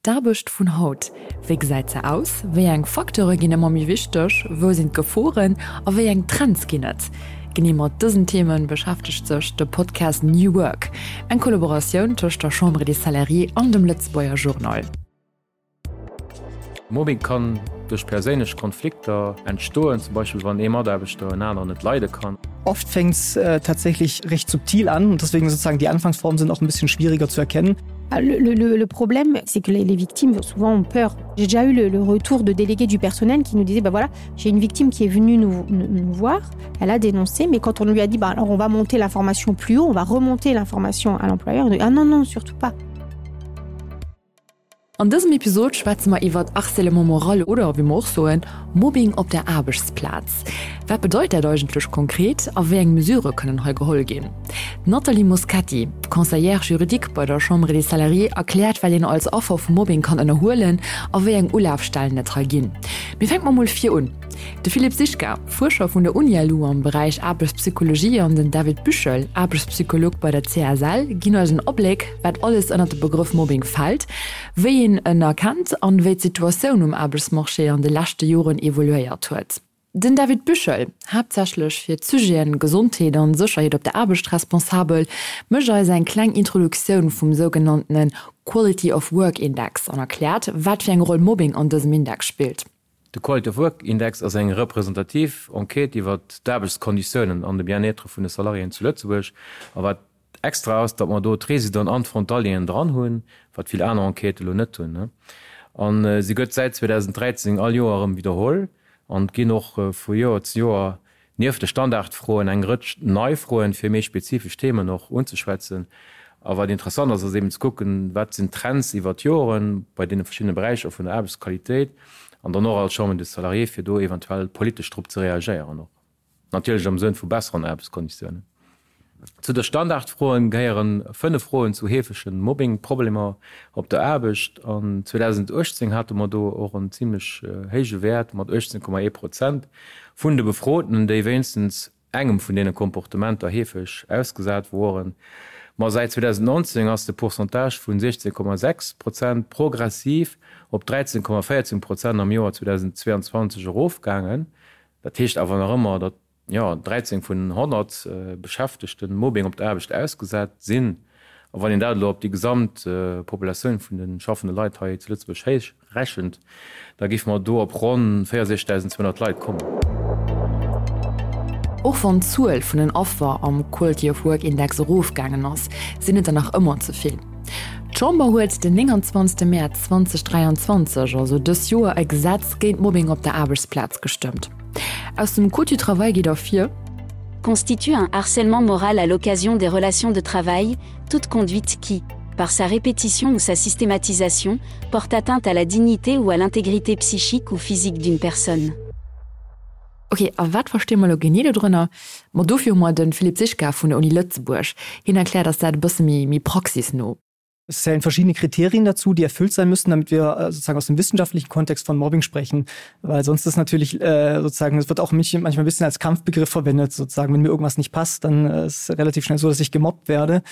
D'Aarbecht vun haut, Wéi gesäit se aus? Wéi eng Facteure ginn ëmmer méi wichteg? Wou sinn d'Geforen a wéi eng Trends ginn et? Genee mat dësen Theme beschäftegt sech de Podcast New Work, eng Kollaboratioun tëscht der Chambre des Salariés an dem Lëtzebuerger Journal. Mobbing kann duerch perséinlech Konflikter entstoen, zum Beispill wann ee Mataarbechter en aneren net leide kann. Oft fängt's tatsächlich recht subtil an und deswegen sozusagen die Anfangsformen sind auch ein bisschen schwieriger zu erkennen. Le, le, le problème, c'est que les, les victimes souvent ont peur. J'ai déjà eu le, le retour de délégués du personnel qui nous disaient bah voilà, j'ai une victime qui est venue nous, nous, nous voir, elle a dénoncé, mais quand on lui a dit bah alors on va monter l'information plus haut, on va remonter l'information à l'employeur, ah non non surtout pas. An dësem Episod schwätze mer iwwert Harcèlement moral oder, wéi mer och soen, Mobbing op der Aarbechtsplaz. Wat bedeit dat eigentlech konkret a wéi eng Mesurë kënnen hei geholl ginn? D'Nathalie Moschetti, Conseillère juridique bei der Chambre des Salariés, erkläert, wat een als Affer vu Mobbing kann ënnerhuelen a wéi eng Ulafstellen et hei ginn. Mee fänke mer mol vir un. De Philippe Sischka, Fuerscher vun der UniLu am Beräich Aarbechtspsychologie an den David Büchel, Aarbechtspsycholog bei der CSL, ginn eis en Abléck, wat alles ënnert de Begrëff Mobbing fält, wéi een en erkennt an wéi d'Situatioun um Aarbechtsmarché an de leschte Joren evoluéiert huet. Den David Büchel, haaptsächlech fir d'Sujeten Gesondheet an Sécherheet op der Aarbecht responsabel, mécht eis eng kleng Introduktioun vum sougenanntene Quality of Work Index an erkläert, wat fir eng Roll Mobbing an dësem Index spillt. De Quality of Work Index ass eng representativ Enquête iwwer d'Aarbechtskonditiounen an de Bien-être vun de Salariéen zu Lëtzebuerg. A wat extra ass, datt mer do d'Residenten an d'Frontalieren dran hunn, wat vill aner Enquêtë elo net hunn. A se gëtt säit 2013 all Joer erëm widderholl an et ginn och vu Joer zu Joer Nieft de Standardfroen eng Rëtsch nei Froen, fir méi spezifesch Themen och unzeschwätzen. A wat interessant ass, ass eben ze kucken, wat sinn d'Trends iwwer d'Joren bei deene verschiddene Beräicher vun der Aarbechtsqualitéit an dann och als Chambre des Salariés, fir do eventuell politesch drop ze reagéieren och, natierlech am Sënn vu besseren Aarbechtskonditiounen. Zu de Standardfroen gehéieren 5 Froen zu heefege Mobbing-Problemer op der Aarbecht. An 2018 hate mer do och en zimlech héije Wäert mat 18,1 Prozent vun de Befrotenen, déi wéinstens engem vun deene Komportementer heefeg ausgesat woren. Ma säit 2019 ass de Pourcentage vun 16,6 Prozent progressiv op 13,14 Prozent am Joer 2022 erofgaangen. Dat heescht awer nach ëmmer, datt jo, 13 vun 100 Beschäftegten Mobbing op der Aarbecht ausgesat sinn. A wann een dat elo op déi gesamt Populatioun vun de schaffende Leit hei zu Lëtzebuerg héichrechent, da géife mer do op ronn 64.200 Leit kommen. Och wann d'Zuel vun den Affer am Quality of Work Index erofgaangen ass, sinn et der nach ëmmer ze vill. D'Chamber huet den 29 Mäerz 2023, also dës Joer, e Gesetz géint Mobbing op der Aarbechtsplaz gestëmmt. Aus dem Code du travail geet ervir, Constitue un harcèlement moral à l'occasion des relations de travail, toute conduite qui, par sa répétition ou sa systématisation, porte atteinte à la dignité ou à l'intégrité psychique ou physique d'une personne. Ok, a wat versti mer elo genee dodrënner? Ma dofir hu mer de Philippe Sischka vun der Uni Lëtzebuerg. Hien erkläert eis dat e bësse méi méi praxisno. Es zählen verschiedene Kriterien dazu, die erfüllt sein müssen, damit wir äh, sozusagen aus dem wissenschaftlichen Kontext von Mobbing sprechen, weil sonst ist natürlich äh, sozusagen es wird auch mich manchmal ein bisschen als Kampfbegriff verwendet sozusagen wenn mir irgendwas nicht passt, dann äh, ist relativ schnell so, dass ich gemobbt werde.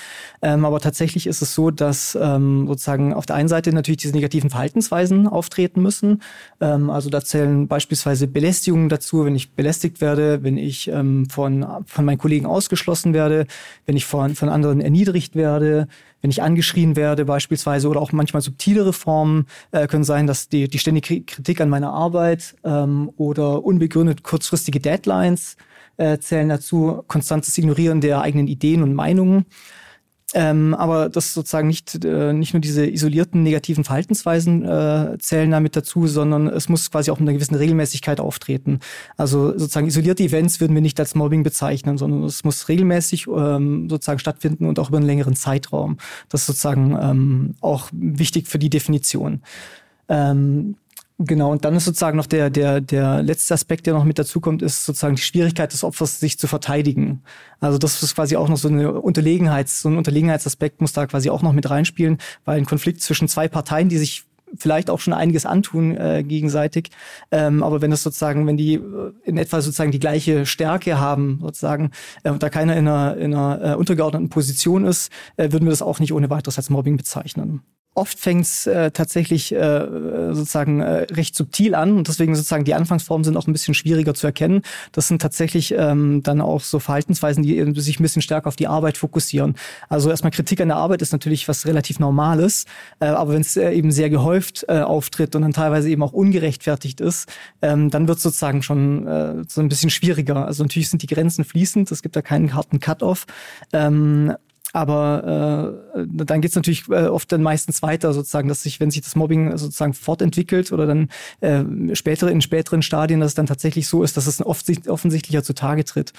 Ähm, aber tatsächlich ist es so, dass ähm, sozusagen auf der einen Seite natürlich diese negativen Verhaltensweisen auftreten müssen. Ähm, also da zählen beispielsweise Belästigungen dazu, wenn ich belästigt werde, wenn ich ähm, von, von meinen Kollegen ausgeschlossen werde, wenn ich von, von anderen erniedrigt werde, wenn ich angeschrien werde beispielsweise oder auch manchmal subtilere Formen äh, können sein, dass die, die ständige Kritik an meiner Arbeit ähm, oder unbegründet kurzfristige Deadlines äh, zählen dazu, konstantes Ignorieren der eigenen Ideen und Meinungen. Ähm, aber das sozusagen nicht, äh, nicht nur diese isolierten negativen Verhaltensweisen äh, zählen damit dazu, sondern es muss quasi auch mit einer gewissen Regelmäßigkeit auftreten. Also sozusagen isolierte Events würden wir nicht als Mobbing bezeichnen, sondern es muss regelmäßig ähm, sozusagen stattfinden und auch über einen längeren Zeitraum. Das ist sozusagen ähm, auch wichtig für die Definition. Ähm, Genau und dann ist sozusagen noch der, der, der letzte Aspekt, der noch mit dazu kommt, ist sozusagen die Schwierigkeit des Opfers, sich zu verteidigen. Also das ist quasi auch noch so eine Unterlegenheits, so ein Unterlegenheitsaspekt muss da quasi auch noch mit reinspielen, weil ein Konflikt zwischen zwei Parteien, die sich vielleicht auch schon einiges antun äh, gegenseitig. Ähm, aber wenn das sozusagen, wenn die äh, in etwa sozusagen die gleiche Stärke haben, sozusagen, äh, und da keiner in einer, in einer äh, untergeordneten Position ist, äh, würden wir das auch nicht ohne weiteres als Mobbing bezeichnen. Oft fängt es äh, tatsächlich äh, sozusagen äh, recht subtil an und deswegen sozusagen die Anfangsformen sind auch ein bisschen schwieriger zu erkennen. Das sind tatsächlich ähm, dann auch so Verhaltensweisen, die sich ein bisschen stärker auf die Arbeit fokussieren. Also erstmal Kritik an der Arbeit ist natürlich was relativ Normales, äh, aber wenn es äh, eben sehr gehäuft äh, auftritt und dann teilweise eben auch ungerechtfertigt ist, ähm, dann wird es sozusagen schon äh, so ein bisschen schwieriger. Also natürlich sind die Grenzen fließend, es gibt da keinen harten Cut-off. Ähm, aber äh, dann geht es natürlich äh, oft dann meistens weiter sozusagen, dass sich, wenn sich das Mobbing sozusagen fortentwickelt oder dann äh, spätere in späteren Stadien, dass es dann tatsächlich so ist, dass es oft, offensichtlicher zutage tritt.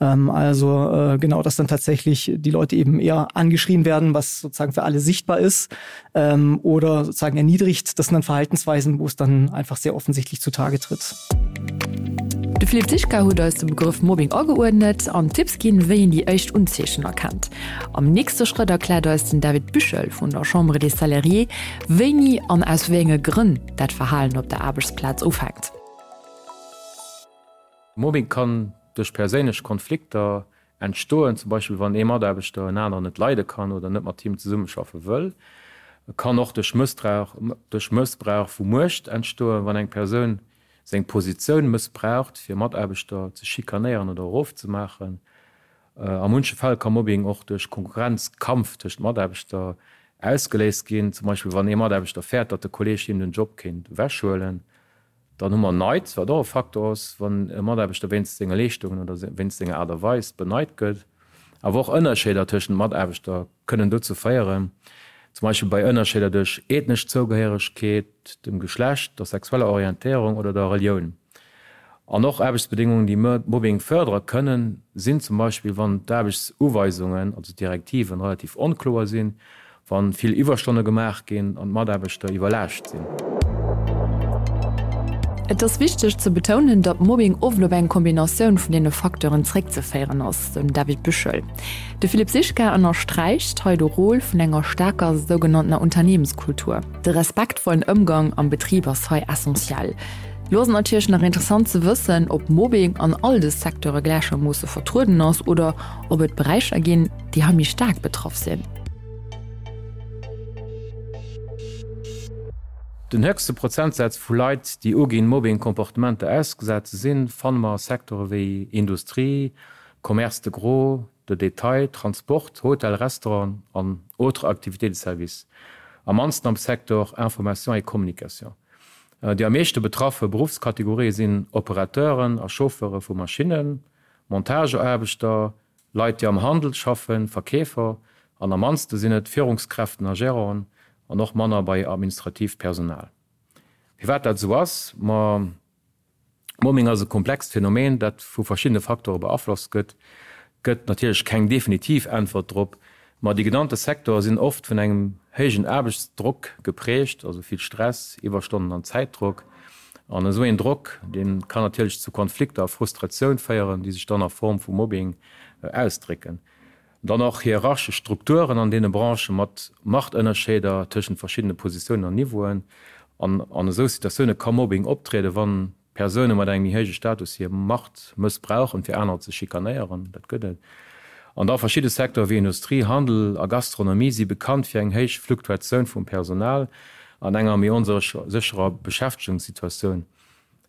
Ähm, also äh, genau, dass dann tatsächlich die Leute eben eher angeschrien werden, was sozusagen für alle sichtbar ist ähm, oder sozusagen erniedrigt. Das sind dann Verhaltensweisen, wo es dann einfach sehr offensichtlich zutage tritt. De Philippe Zischka huet eis de Begrëff Mobbing ageuerdnet an Tipps ginn, wéi een déi éischt Unzeechen erkennt. Am nächste Schrëtt erkläert eis den David Büchel vun der Chambre des Salariés, wéini an aus wéi enge Grënn dat Verhalen op der Aarbechtsplaz ufänkt. Mobbing kann duerch perséinlech Konflikter entstoen, zum Beispill wann ee Mataarbechter en aneren net leide kann oder net mat him zesummeschaffe wëll. E kann och duerch Mëssbrauch vu Muecht entstoen, wann eng Persoun seng Positioun mëssbraucht, fir Mataarbechter ze schikanéieren oder erofzemaachen. A munche Fäll ka Mobbing och duerch Konkurrenzkampf tëscht Mataarbechter ausgeléist ginn, zum Beispill wann ee Mataarbechter fäert, datt de Kolleeg him den Job kéint ewechhuelen. Dann hu mer Neid, wat och e Faktor ass, wann e Mataarbechter wéinst senge Leeschtungen oder wéinst senger Aart a Weis beneit gëtt. Awer och Ënnerscheeder tëschent Mataarbechter kënnen dozou féieren, zum Beispill bei Ënnerscheeder duerch ethnesch Zougehéieregkeet, dem Geschlecht, der sexueller Orientéierung oder der Relioun. An och Aarbechtsbedéngungen, déi Mobbing fërdere kënnen, sinn zum Beispill, wann d'Aarbechtsuweisungen, also d'Direktiven, relativ onkloer sinn, wa vill Iwwerstonne gemaach ginn an d'Mataarbechter iwwerlaascht sinn. Et ass wichteg ze betounen, datt Mobbing oft op eng Kombinatioun vun deene Facteuren zréckzeféieren ass, sou den David Büchel. De Philippe Sischka ënnersträicht hei de Rôle vun enger staarker sougenanntener Unternehmenskultur. De respektvollen Ëmgang am Betrib ass hei essentiell. Lo ass et natierlech nach interessant ze wëssen, ob Mobbing an all de Secteure gläichermoosse vertrueden ass oder ob et Beräicher ginn, déi hei méi staark betraff sinn. Den héchste Prozentsaz vu Leit, déi uginn, Mobbing-Comportementer ausgesat ze sinn, fanne mer a Secteure wéi Industrie, Commerce de gros, de détail, Transport, Hotel, Restaurant an autres activités de service. Am mannsten am Secteur Information et communication. Déi am meeschte betraffe Beruffskategorië sinn Operateuren a Chauffeure vu Maschinnen, Montageaarbechter, Leit, déi am Handel schaffen, Verkeefer, an am mannste sinn et Führungskräften a Geranten an och manner bei administratiivt Personal. Firwat dat esou ass? Ma Mobbing ass e komplext Phänomen, dat vu verschiddene Facteure beaflosst gëtt. Et gëtt natierlech keng definitiv Äntwert drop, ma déi genannte Secteure sinn oft vun engem héijen Aarbechtsdrock geprägt, also vill Stress, Iwwerstonnen an Zäitdrock. An esou een Drock, dee kann natierlech zu Konflikter a Frustratioun féieren, déi sech dann a Form vu Mobbing ausdrécken. Dann och hierarchesch Strukturen an deene Branchë mat Machtënnerscheeder tëschent verschiddene Positiounen an Niveauen. An an esou Situatioune ka Mobbing optrieden, wann Persoune mat engem méi héije Status hir Macht mëssbrauchen, fir anerer ze schikanéieren. Dat gëtt et. An da verschidde Secteure wéi Industrie, Handel a Gastronomie si bekannt fir eng héich Fluktuatioun vum Personal an enger méi onsécherer Beschäftegungssituatioun.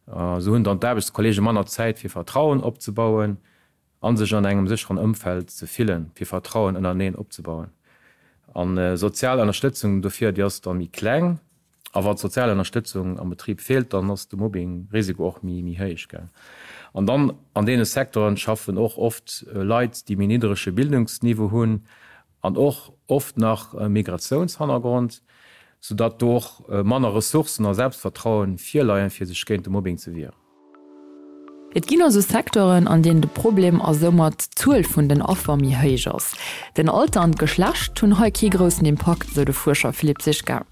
Esou hunn dann d'Aarbechtskolleege manner Zäit fir Vertrauen opzebauen a sech an engem sécheren Ëmfeld ze fillen, fir Vertrauen ënnereneen opzebauen. An sozial Ënnerstëtzung dofir, déi ass da méi kleng. A wa d'sozial Ënnerstëtzung am Betrib feelt, dann ass de Mobbing-Risiko och méi héich. An dann an deene Secteuren schaffen och oft Leit, déi méi nidderege Bildungsniveau hunn an och oft nach e Migratiounshannergrond, soudatt do och manner Ressourcen a Selbstvertrauen virleien, fir sech géint de Mobbing ze wieren. Et ginn also Secteuren, an deenen de Problem a soumat d'Zuel vun den Affer méi héich ass. Den Alter an d'Geschlecht hunn hei kee groussen Impakt, sou de Fuerscher Philippe Sischka.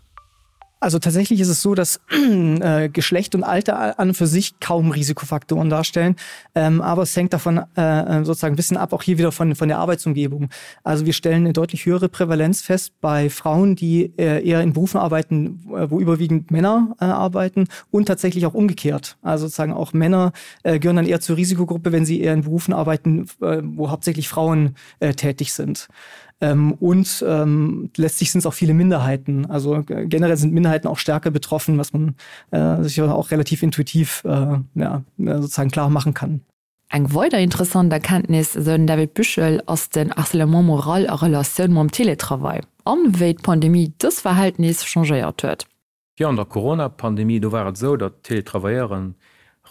Also tatsächlich ist es so, dass äh, Geschlecht und Alter an und für sich kaum Risikofaktoren darstellen. Ähm, aber es hängt davon äh, äh, sozusagen ein bisschen ab, auch hier wieder von, von der Arbeitsumgebung. Also wir stellen eine deutlich höhere Prävalenz fest bei Frauen, die äh, eher in Berufen arbeiten, äh, wo überwiegend Männer äh, arbeiten und tatsächlich auch umgekehrt. Also sozusagen auch Männer äh, gehören dann eher zur Risikogruppe, wenn sie eher in Berufen arbeiten, äh, wo hauptsächlich Frauen äh, tätig sind. Ähm, und ähm, letztlich sind es auch viele Minderheiten. Also generell sind Minderheiten auch stärker betroffen, was man äh, sich auch relativ intuitiv äh, ja, sozusagen klar machen kann. Eng weider interessant Erkenntnis, esou den David Büchel, ass den Harcèlement moral a Relatioun mam Teletravail an wéi d'Pandemie dës Verhältnis changéiert huet. Jo, an der Corona-Pandemie, do war et esou, datt d'Teletravailleuren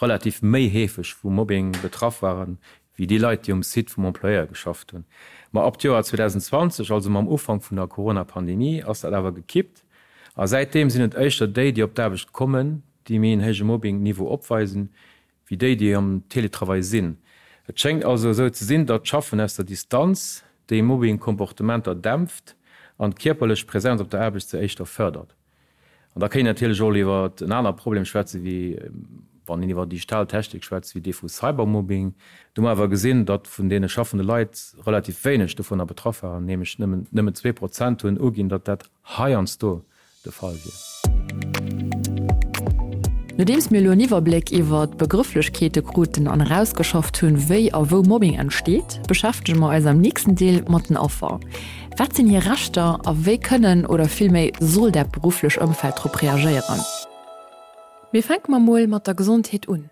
relativ méi heefeg vu Mobbing betraff waren, wéi déi Leit, déi um Site vum Employeur geschafft hunn. Ma ab d'Joer 2020, also mam Ufank vun der Corona-Pandemie, ass dat awer gekippt a säitdeem sinn et éischter déi, déi op d'Aarbecht kommen, déi méi en héije Mobbing-Niveau opweisen, wéi déi, déi am Teletravail sinn. Et schéngt also esou ze sinn, datt d'Schaffen aus der Distanz déi Mobbing-Komportementer dämpft an d'kierperlech Präsenz op der Aarbecht se éischter fërdert. An da kéint een natierlech och iwwer en aner Problem schwätzen, wéi wann een iwwer digital Technik schwätzt, wéi dee vu Cybermobbing. Do hu mer awer gesinn, datt vun deene schaffende Leit relativ wéineg dovunner betraff waren, nämlech nëmmen 2% hunn uginn, datt dat heiansdo de Fall wier. Nodeems mir elo en Iwwerbléck iwwer d'Begrëfflechkeete kruten an erausgeschafft hunn, wéi a wou Mobbing entsteet, beschäftege mer eis am nächsten Deel mat den Affer. Wat sinn hir Rechter a wéi kënnen oder villméi soll dat berufflech Ëmfeld drop reagéieren? Mee fänke mer mol mat der Gesondheet un.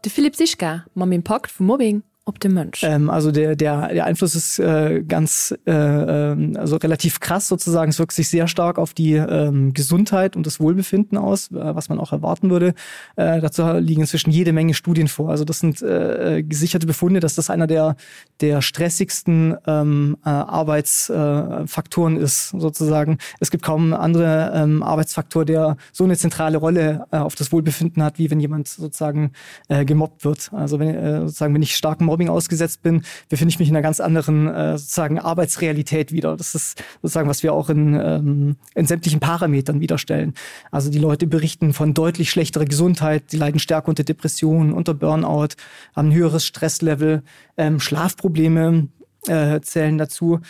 De Philippe Sischka mam Impakt vum Mobbing op de Mënsch. Ähm, also der, der, der Einfluss ist äh, ganz äh, ähm, also relativ krass sozusagen. Es wirkt sich sehr stark auf die ähm, Gesundheit und das Wohlbefinden aus, äh, was man auch erwarten würde. Äh, dazu liegen inzwischen jede Menge Studien vor. Also das sind äh, äh gesicherte Befunde, dass das einer der, der stressigsten ähm, äh, Arbeitsfaktoren äh, ist sozusagen. Es gibt kaum andere ähm, Arbeitsfaktor, der so eine zentrale Rolle äh, auf das Wohlbefinden hat, wie wenn jemand sozusagen äh, gemobbt wird. Also wenn, äh, sozusagen, wenn ich starkem Mobbing ausgesetzt bin, befinde ich mich in einer ganz anderen äh, sozusagen Arbeitsrealität wieder. Das ist sozusagen, was wir auch in, ähm, in sämtlichen Parametern widerstellen. Also die Leute berichten von deutlich schlechterer Gesundheit, sie leiden stärker unter Depressionen, unter Burnout, haben ein höheres Stresslevel, ähm, Schlafprobleme äh, zählen dazu.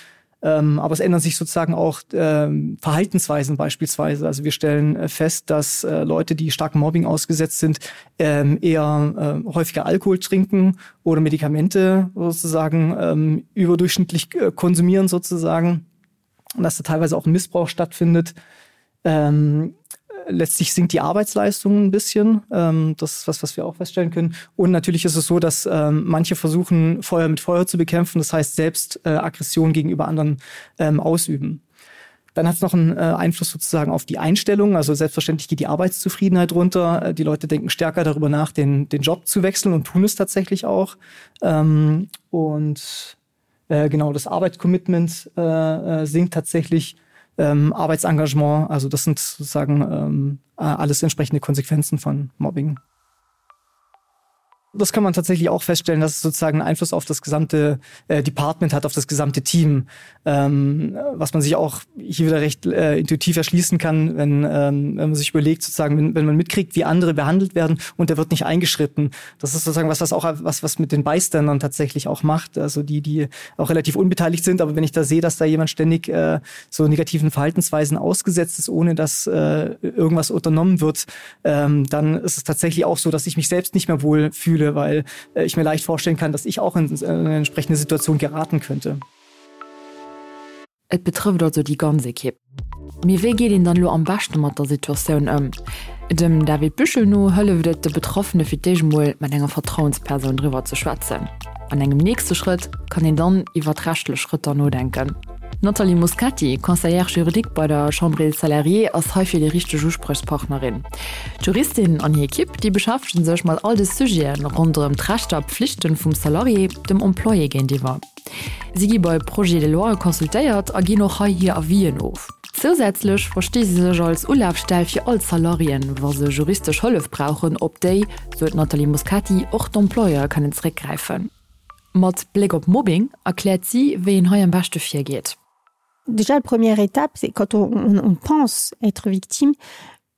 Ähm, aber es ändern sich sozusagen auch ähm, Verhaltensweisen beispielsweise. Also wir stellen äh, fest, dass äh, Leute, die starkem Mobbing ausgesetzt sind, ähm, eher äh, häufiger Alkohol trinken oder Medikamente sozusagen ähm, überdurchschnittlich äh, konsumieren sozusagen. Und dass da teilweise auch ein Missbrauch stattfindet. Ähm, letztlich sinkt die Arbeitsleistung ein bisschen. Ähm, das ist was, was wir auch feststellen können. Und natürlich ist es so, dass ähm, manche versuchen, Feuer mit Feuer zu bekämpfen, das heißt selbst äh, Aggression gegenüber anderen ähm, ausüben. Dann hat es noch einen äh, Einfluss sozusagen auf die Einstellung. Also selbstverständlich geht die Arbeitszufriedenheit runter. Äh, die Leute denken stärker darüber nach, den, den Job zu wechseln und tun es tatsächlich auch. Ähm, und äh, genau das Arbeitscommitment äh, äh, sinkt tatsächlich ähm, Arbeitsengagement. Also das sind sozusagen ähm, äh, alles entsprechende Konsequenzen von Mobbing. Das kann man tatsächlich auch feststellen, dass es sozusagen einen Einfluss auf das gesamte äh, Department hat, auf das gesamte Team, ähm, was man sich auch hier wieder recht äh, intuitiv erschließen kann, wenn, ähm, wenn man sich überlegt, sozusagen, wenn, wenn man mitkriegt, wie andere behandelt werden und der wird nicht eingeschritten. Das ist sozusagen was, was auch was, was mit den Beistandern tatsächlich auch macht, also die, die auch relativ unbeteiligt sind. Aber wenn ich da sehe, dass da jemand ständig äh, so negativen Verhaltensweisen ausgesetzt ist, ohne dass äh, irgendwas unternommen wird, ähm, dann ist es tatsächlich auch so, dass ich mich selbst nicht mehr wohl fühle, weil äh, ich mir leicht vorstellen kann, dass ich auch in, in eine entsprechende Situation geraten könnte. Et betrëfft also déi ganz Ekipp. Mee wéi geet een dann elo am beschte mat der Situatioun ëm? Dem David Büchel no hëlleft et de Betraffene fir d'éischt emol mat enger Vertrauenspersoun driwwer ze schwätzen. An engem nächste Schrëtt kann een dann iwwert rechtlech Schrëtter nodenken. D'Nathalie Moscati, Conseillère juridique bei der Chambre des Salariés, ass heifir déi richteg Uspriechspartnerin. D'Juristin an hir Ekipp, déi beschäftege sech mat all de Sujete ronderëm d'Rechter a Pflichten vum Salarié dem Employé géintiwwer. Si gi bei Projets de loi consultéiert a ginn och hei hir Avisen of. Zousätzlech versti si sech als Ulafstell fir all d'Salariéen, wa se juristesch Hëllef brauchen, op déi, sou d'Nathalie Moscati, och d'Employeure kënnen zeréckgräifen. Mat Bléck op Mobbing erkläert si, wéi een hei am beschte virgeet. Déjà la première étape, c'est quand on, on, on pense être victime,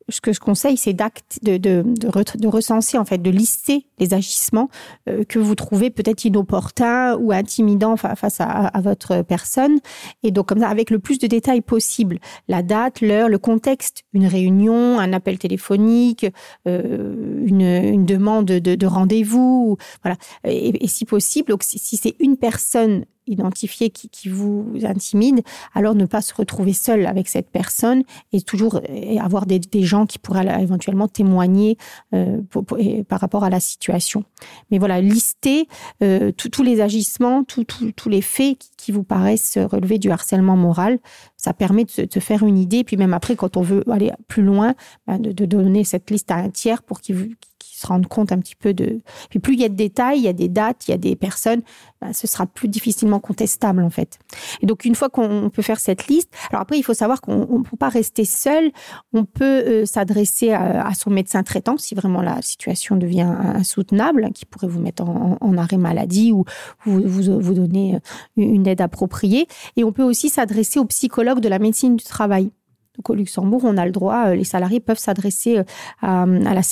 ce que je conseille, c'est d'acte de, de, de, re, de recenser en fait, de lister les agissements euh, que vous trouvez peut-être inopportuns ou intimidants fa face à, à votre personne. Et donc comme ça, avec le plus de détails possible, la date, l'heure, le contexte, une réunion, un appel téléphonique, euh, une, une demande de, de rendez-vous, voilà. Et, et si possible, donc si, si c'est une personne. identifié qui, qui vous intimide, alors ne pas se retrouver seul avec cette personne et toujours et avoir des, des gens qui pourraient éventuellement témoigner euh, pour, pour, et, par rapport à la situation. Mais voilà, lister euh, tous les agissements, tous les faits qui, qui vous paraissent relever du harcèlement moral, ça permet de se, de se faire une idée. Puis même après, quand on veut aller plus loin, ben de, de donner cette liste à un tiers pour qu'il vous qui se rendent compte un petit peu de puis plus il y a de détails il y a des dates il y a des personnes ben, ce sera plus difficilement contestable en fait et donc une fois qu'on peut faire cette liste alors après il faut savoir qu'on ne peut pas rester seul on peut euh, s'adresser à, à son médecin traitant si vraiment la situation devient insoutenable qui pourrait vous mettre en, en arrêt maladie ou vous, vous, vous donner euh, une aide appropriée et on peut aussi s'adresser au psychologue de la médecine du travail Donc au Luxembourg, on a le droit, euh, les salariés peuvent s'adresser euh, à, à, la,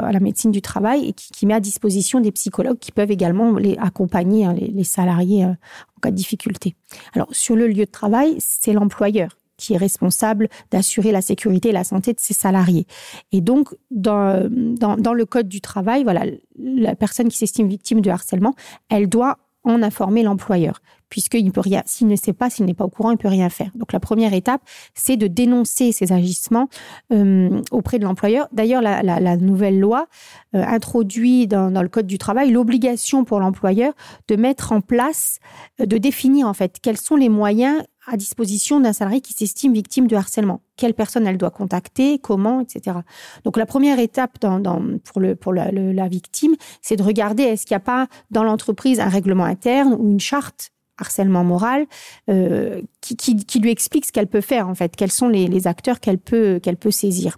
à la médecine du travail et qui, qui met à disposition des psychologues qui peuvent également les accompagner hein, les, les salariés euh, en cas de difficulté. Alors sur le lieu de travail, c'est l'employeur qui est responsable d'assurer la sécurité et la santé de ses salariés. Et donc dans, dans, dans le code du travail, voilà, la personne qui s'estime victime de harcèlement, elle doit en informer l'employeur puisqu'il ne peut rien s'il ne sait pas s'il n'est pas au courant il peut rien faire donc la première étape c'est de dénoncer ces agissements euh, auprès de l'employeur d'ailleurs la, la, la nouvelle loi euh, introduit dans, dans le code du travail l'obligation pour l'employeur de mettre en place euh, de définir en fait quels sont les moyens à disposition d'un salarié qui s'estime victime de harcèlement quelle personne elle doit contacter comment etc donc la première étape dans, dans pour le pour la, le, la victime c'est de regarder est-ce qu'il n'y a pas dans l'entreprise un règlement interne ou une charte harcèlement moral euh, qui, qui, qui lui explique ce qu'elle peut faire en fait quels sont les, les acteurs qu'elle peut qu'elle peut saisir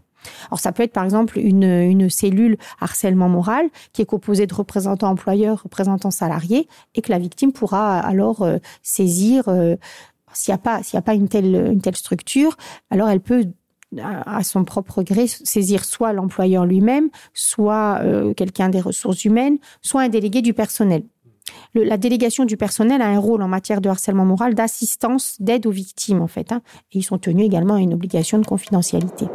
alors ça peut être par exemple une, une cellule harcèlement moral qui est composée de représentants employeurs représentants salariés et que la victime pourra alors euh, saisir euh, s'il n'y a pas s'il n'y a pas une telle une telle structure alors elle peut à son propre gré saisir soit l'employeur lui-même soit euh, quelqu'un des ressources humaines soit un délégué du personnel le, la délégation du personnel a un rôle en matière de harcèlement moral d'assistance d'aide aux victimes en fait hein, et ils sont tenus également à une obligation de confidentialité.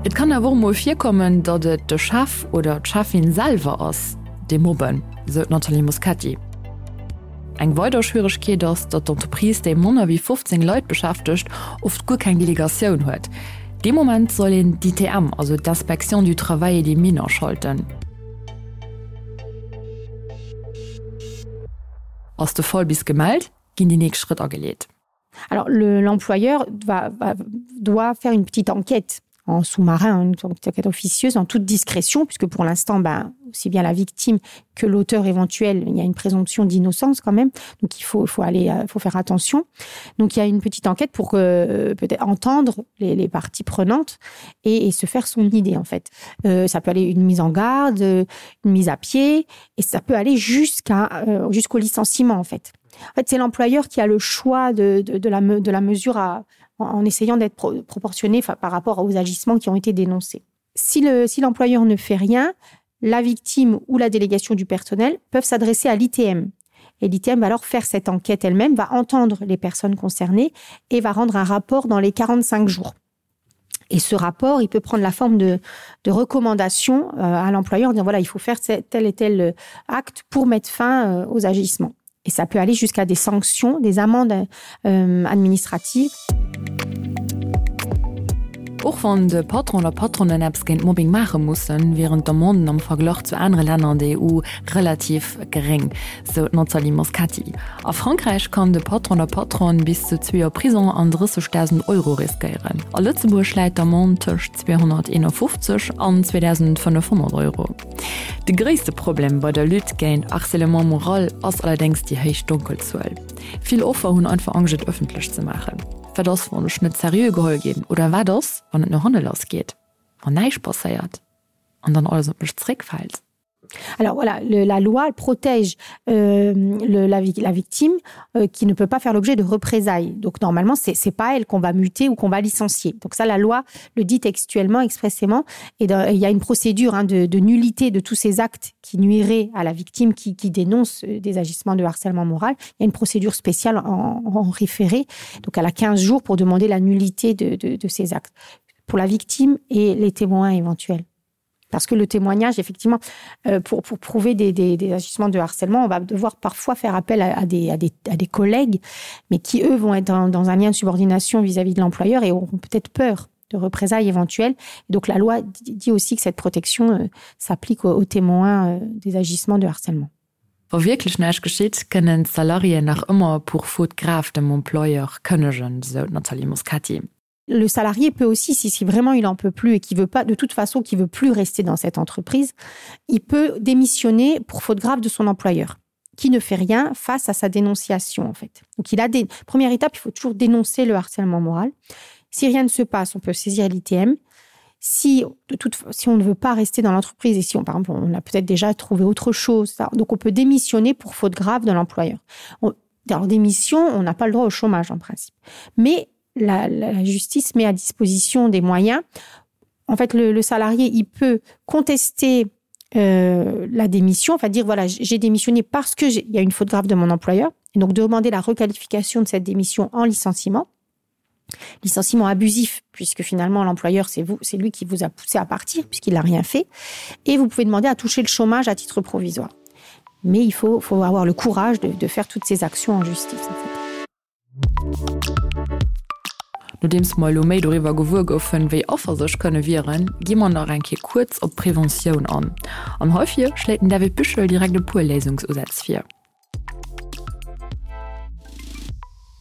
Et kann awer och mol virkommen, datt et de Chef oder d'Cheffin selwer ass, dee mobben, sou d'Nathalie Moschetti. Eng weider Schwieregkeet ass, datt d'Entreprise, déi manner wéi 15 Leit beschäftegt, oft guer keng Delegatioun huet. Dee Moment soll een d'ITM, also d'Inspection du Travail et des Mines aschalten. Ass de Fall bis gemellt, ginn déi nächst Schrëtt ageleet. Alors l'employeur le, va, va, doit faire une petite enquête en sous-marin, une enquête officieuse en toute discrétion, puisque pour l'instant ben, aussi bien la victime que l'auteur éventuel, il y a une présomption d'innocence quand même, donc il faut, faut aller euh, faut faire attention. Donc il y a une petite enquête pour euh, peut-être entendre les, les parties prenantes et, et se faire son idée en fait. Euh, ça peut aller une mise en garde, une mise à pied et ça peut aller jusqu'à euh, jusqu'au licenciement en fait. En fait, c'est l'employeur qui a le choix de, de, de, la, de la mesure à, en, en essayant d'être pro, proportionné par rapport aux agissements qui ont été dénoncés. Si l'employeur si ne fait rien, la victime ou la délégation du personnel peuvent s'adresser à l'ITM. Et l'ITM va alors faire cette enquête elle-même, va entendre les personnes concernées et va rendre un rapport dans les 45 jours. Et ce rapport, il peut prendre la forme de, de recommandations euh, à l'employeur en disant voilà, il faut faire tel et tel euh, acte pour mettre fin euh, aux agissements. Et ça peut aller jusqu'à des sanctions, des amendes euh, administratives. Och wann de Patron oder Patronen eppes géint Mobbing maache mussen, wieren d'Amenden am Verglach zu anere Länner an der EU relativ geréng, sou d'Nathalie Moscati. A Frankräich kann de Patron oder Patronne bis zu zwee Joer Prisong an 30.000 Euro riskéieren. A Lëtzebuerg läit d'Amende tëscht 251 an 2.500 Euro. De gréisste Problem bei der Lutte géint Harcèlement moral ass allerdéngs déi héich Donkelzuel. Vill Offer hunn einfach Angscht et ëffentlech ze maachen. Wat ass wann ech net seriö geholl ginn? Oder wat ass wann et no hanne lass geet, wann näischt passéiert an dann alles op mech zeréckfält? Alors voilà, le, la loi protège euh, le, la, la victime euh, qui ne peut pas faire l'objet de représailles. Donc normalement, ce n'est pas elle qu'on va muter ou qu'on va licencier. Donc ça, la loi le dit textuellement, expressément. Et dans, il y a une procédure hein, de, de nullité de tous ces actes qui nuiraient à la victime qui, qui dénonce euh, des agissements de harcèlement moral. Il y a une procédure spéciale en, en référé. Donc elle a 15 jours pour demander la nullité de, de, de ces actes pour la victime et les témoins éventuels. Parce que le témoignage, effectivement, euh, pour, pour prouver des, des, des agissements de harcèlement, on va devoir parfois faire appel à, à, des, à, des, à des collègues, mais qui, eux, vont être dans, dans un lien de subordination vis-à-vis -vis de l'employeur et auront peut-être peur de représailles éventuelles. Et donc la loi dit aussi que cette protection euh, s'applique aux, aux témoins euh, des agissements de harcèlement. Wa wierklech näischt geschitt, kënnen d'Salariéen nach ëmmer pour faute grave dem Employeur kënnegen, sou d'Nathalie Moscati. Le salarié peut aussi, si, si vraiment il en peut plus et qui veut pas de toute façon qui veut plus rester dans cette entreprise, il peut démissionner pour faute grave de son employeur qui ne fait rien face à sa dénonciation en fait. Donc il a des première étape, il faut toujours dénoncer le harcèlement moral. Si rien ne se passe, on peut saisir l'ITM. Si, de toute, si on ne veut pas rester dans l'entreprise et si on par exemple on a peut-être déjà trouvé autre chose ça, donc on peut démissionner pour faute grave de l'employeur. Dans démission, on n'a pas le droit au chômage en principe. Mais la, la justice met à disposition des moyens. En fait, le, le salarié il peut contester euh, la démission, enfin dire voilà j'ai démissionné parce que il y a une faute grave de mon employeur et donc demander la requalification de cette démission en licenciement licenciement abusif puisque finalement l'employeur c'est vous c'est lui qui vous a poussé à partir puisqu'il n'a rien fait et vous pouvez demander à toucher le chômage à titre provisoire mais il faut faut avoir le courage de, de faire toutes ces actions en justice en fait. Nodeems mer elo méi doriwwer gewuer goufen, wéi Affer sech kënne wieren, gi mer nach eng Kéier kuerz op d'Preventioun an. An heifir schléit den David Büchel direkt e puer Léisungsusätz vir.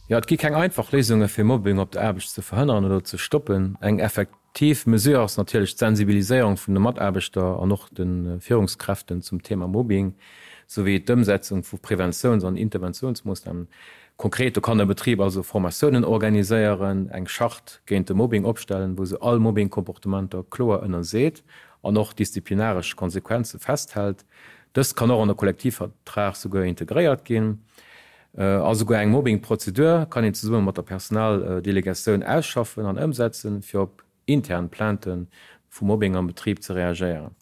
Jo, et gi keng einfach Léisunge fir Mobbing op der Aarbecht ze verhënneren oder ze stoppen. Eng effektiv Mesure ass natierlech d'Sensibiliséierung vun de Mataarbechter an och de Führungskräften zum Thema Mobbing, souwéi d'Ëmsetzung vu Preventiouns an Interventiounsmoossnamen. Konkret, do kann e Betrib also Formatiounen organiséieren, eng Charte géint de Mobbing opstellen, wou se all Mobbing-Comportementer kloer ënnerseet an och disziplinaresch Konsequenze festhält. Dëst kann och an de Kollektivvertrag souguer integréiert ginn. A souguer eng Mobbing-Prozedur kann een zesumme mat der Personaldelegatioun ausschaffen an ëmsetzen, fir op intern Plainte vu Mobbing am Betrib ze reagéieren.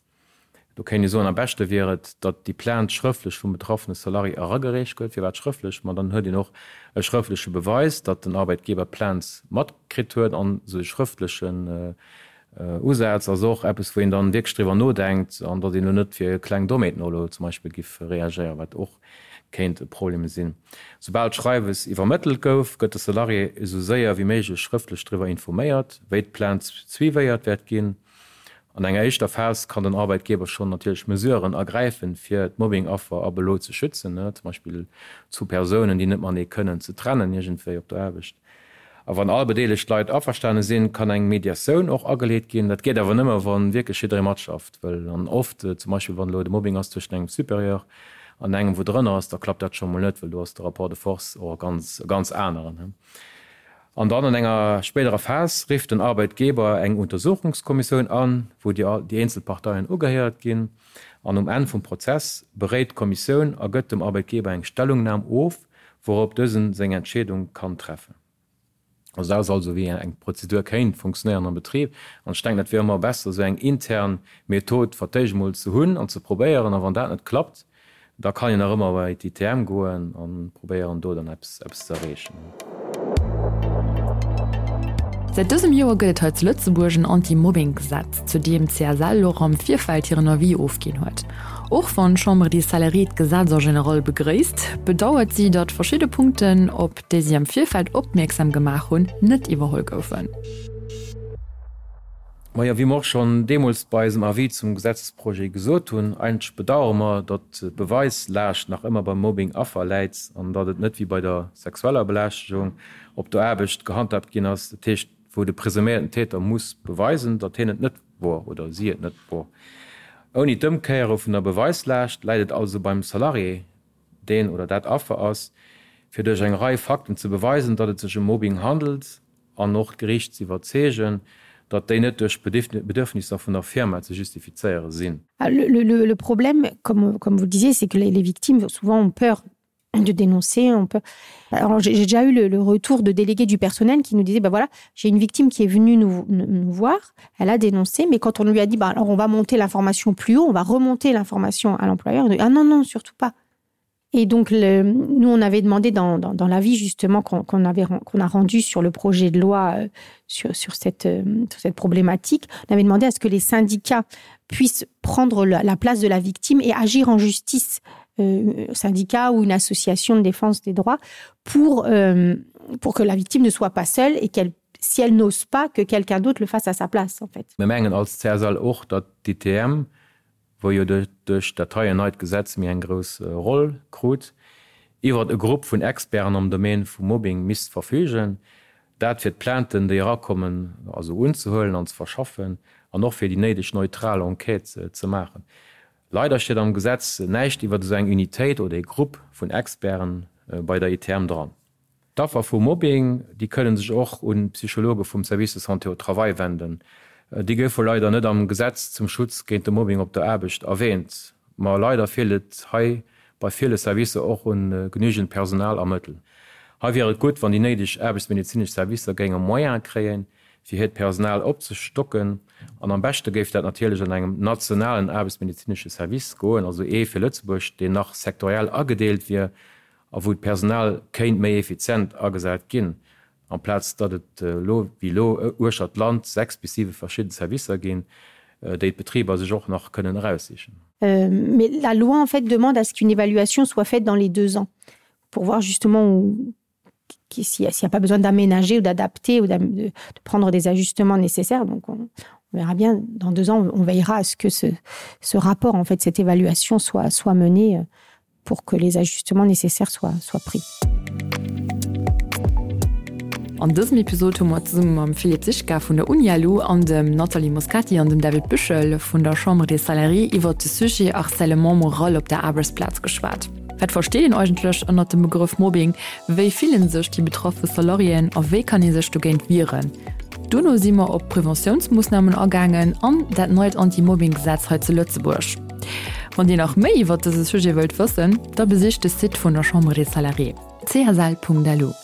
Do kéint ee soen, am beschte wier et, datt déi Plainte schrëftlech vum betraffene Salarié eragereecht gëtt. Firwat schrëftlech? Ma dann huet een och e schrëftleche Beweis, datt den Arbeitgeber d'Plainte matkritt huet. An esou e schrëftlechen Usaz ass och eppes, wou een dann wierklech driwwer nodenkt an datt een elo net fir kleng Dommheeten och elo zum Beispill giff reagéieren, wat och kéint e Problem sinn. Soubal d'Schreiwes iwwermëttelt gouf, gëtt de Salarié esou séier wéi méiglech schrëftlech driwwer informéiert, wéi d'Plainte suivéiert wäert ginn. An enger éischter Phas kann den Arbeitgeber schonn natierlech Mesuren ergräifen, fir d'Mobbing-Affer ab elo ze schützen, zum Beispill zu Persounen, déi net matenee kënnen, ze trennen iergendwéi op der Aarbecht. A wann all bedeelegt Leit averstane sinn, kann eng Mediatioun och ageleet ginn. Dat geet awer nëmme, wa wierklech jidderee matschafft wëll. An oft, zum Beispill wann elo de Mobbing ass tëschent engem Supérieur an engem, wou drënner ass, da klappt dat scho mol net, well do ass de Rapport de force och e ganz, e ganz aneren. An dann an enger spéiderer Phas rifft den Arbeitgeber eng Untersuchungskommissioun an, wou déi eenzel Parteien ugehéiert ginn. An um Enn vum Prozess beréit d'Kommissioun a gëtt dem Arbeitgeber eng Stellungnam of, wourop dësen seng Entscheedung kann treffen. Also dat ass also wéi eng Prozedur kéint funktionéieren am Betrib. An ech denken, dat wier ëmmer besser, esou eng intern Method fir d'éischt emol ze hunn an ze probéieren. A wann dat net klappt, Da kann een nach ëmmer bei d'ITM goen an probéieren do dann eppes eppes ze erreechen. Säit dësem Joer gëtt et hei zu Lëtzebuerg en Anti-Mobbing-Gesetz, zu deem d'CSL och am Virfeld hiren Avis ofginn huet. Och wann d'Chambre des Salariés d'Gesetz en général begréisst, bedauert si, datt verschidde Punkten, op déi si am Virfeld opmierksam gemaach hunn, net iwwerholl goufen. Majo, wéi mer och schonn deemools bei eisem Avis zum Gesetzesprojet gesot hunn, eigentlech bedauere mer, datt d'Beweislaascht nach ëmmer beim Mobbing-Affer läit an datt et net wéi bei der sexueller Belästegung op der Aarbecht gehandhaabt ginn ass, dat heescht, wou de presuméierten Täter muss beweisen, datt hien et net wor oder si et net wor. Ouni d'Ëmkéiere vun der Beweislaascht läit et also beim Salarié, deen oder dat Affer ass, fir duerch eng Rei Fakten ze beweisen, datt et sech ëm Mobbing handelt an och d'Geriicht ze iwwerzeegen, datt déi net duerch d'Bedürfnisser vun der Firma ze justifizéiere sinn. Le, le, le problème, comme, comme vous le disiez, c'est que les, les victimes souvent ont peur de dénoncer on peut alors j'ai déjà eu le, le retour de délégués du personnel qui nous disait ben voilà j'ai une victime qui est venue nous, nous, nous voir elle a dénoncé mais quand on lui a dit ben alors on va monter l'information plus haut on va remonter l'information à l'employeur ah non non surtout pas. Et donc le, nous on avait demandé dans, dans, dans l'avis justement qu'on qu avait qu'on a rendu sur le projet de loi euh, sur, sur, cette, euh, sur cette problématique, on avait demandé à ce que les syndicats puissent prendre la, la place de la victime et agir en justice euh, syndicat ou une association de défense des droits pour, euh, pour que la victime ne soit pas seule et qu'elle si elle n'ose pas que quelqu'un d'autre le fasse à sa place en fait. Mir mengen als CSL och, datt d'ITM, wou jo duerch dat heien neit Gesetz méi eng grouss Roll krut, iwwert e Grupp vun Experten am Domaine vum Mobbing misst verfügen, dat fir d'Plainten, déi erakommen, also unzehuelen an ze verschaffen an och fir déi néideg neutral Enquête ze maachen. Leider steet am Gesetz näischt iwwert esou eng Unitéit oder ee Grupp vun Experten bei der ITM dran. D'Affer vu Mobbing, déi kënne sech och un d'Psychologe vum Service de santé au travail wenden. Déi goufe leider net am Gesetz zum Schutz géint de Mobbing op der Aarbecht erwäänt. Ma leider feelt et hei bei ville Servicer och un genügend Personal a Mëttel. Hei wier et gutt, wann déi néideg aarbechtsmedezinesch Servicer géinge Moyene kréien, fir hiert Personal opzestocken. An am beschte géif dat natierlech an engem nationalen aarbechtsmedezinesche Service goen, also ee fir Lëtzebuerg, deen nach sektoriell agedeelt wier a wou d'Personal kéint méi effizient agesat ginn, amplaz datt et elo wéi elo uechter d'Land 6 bis 7 verschidden Servicer ginn, déi d'Betriber sech och nach kënnen eraussichen. Mais la loi en fait demande à ce qu'une évaluation soit faite dans les deux ans pour voir justement où s'il n'y a, a pas besoin d'aménager ou d'adapter ou de, de prendre des ajustements nécessaires donc on, on verra bien dans deux ans on veillera à ce que ce, ce rapport en fait cette évaluation soit soit menée euh, pour que les ajustements nécessaires soient soient pris. An dësem Episod hu mer zesumme mam Philippe Sichka vun der Unialu an dem Nathalie Moscati an dem David Büchel vun der Chambre des Salariés iwwert de Sujet Harcèlement moral op der Aarbechtsplaz geschwat. Wat versteet een eigentlech ënnert dem Begrëff Mobbing? Wéi fillen sech déi betraffe Salariéen a wéi kann ee sech dogéint wieren? Dono si mer op Preventiounsmoossnamen agaangen an dat neit Anti-Mobbing-Gesetz hei zu Lëtzebuerg. Wann Dir nach méi iwwert dëse Sujet wëllt wëssen, da besicht de Site vun der Chambre des Salariés, csl.lu.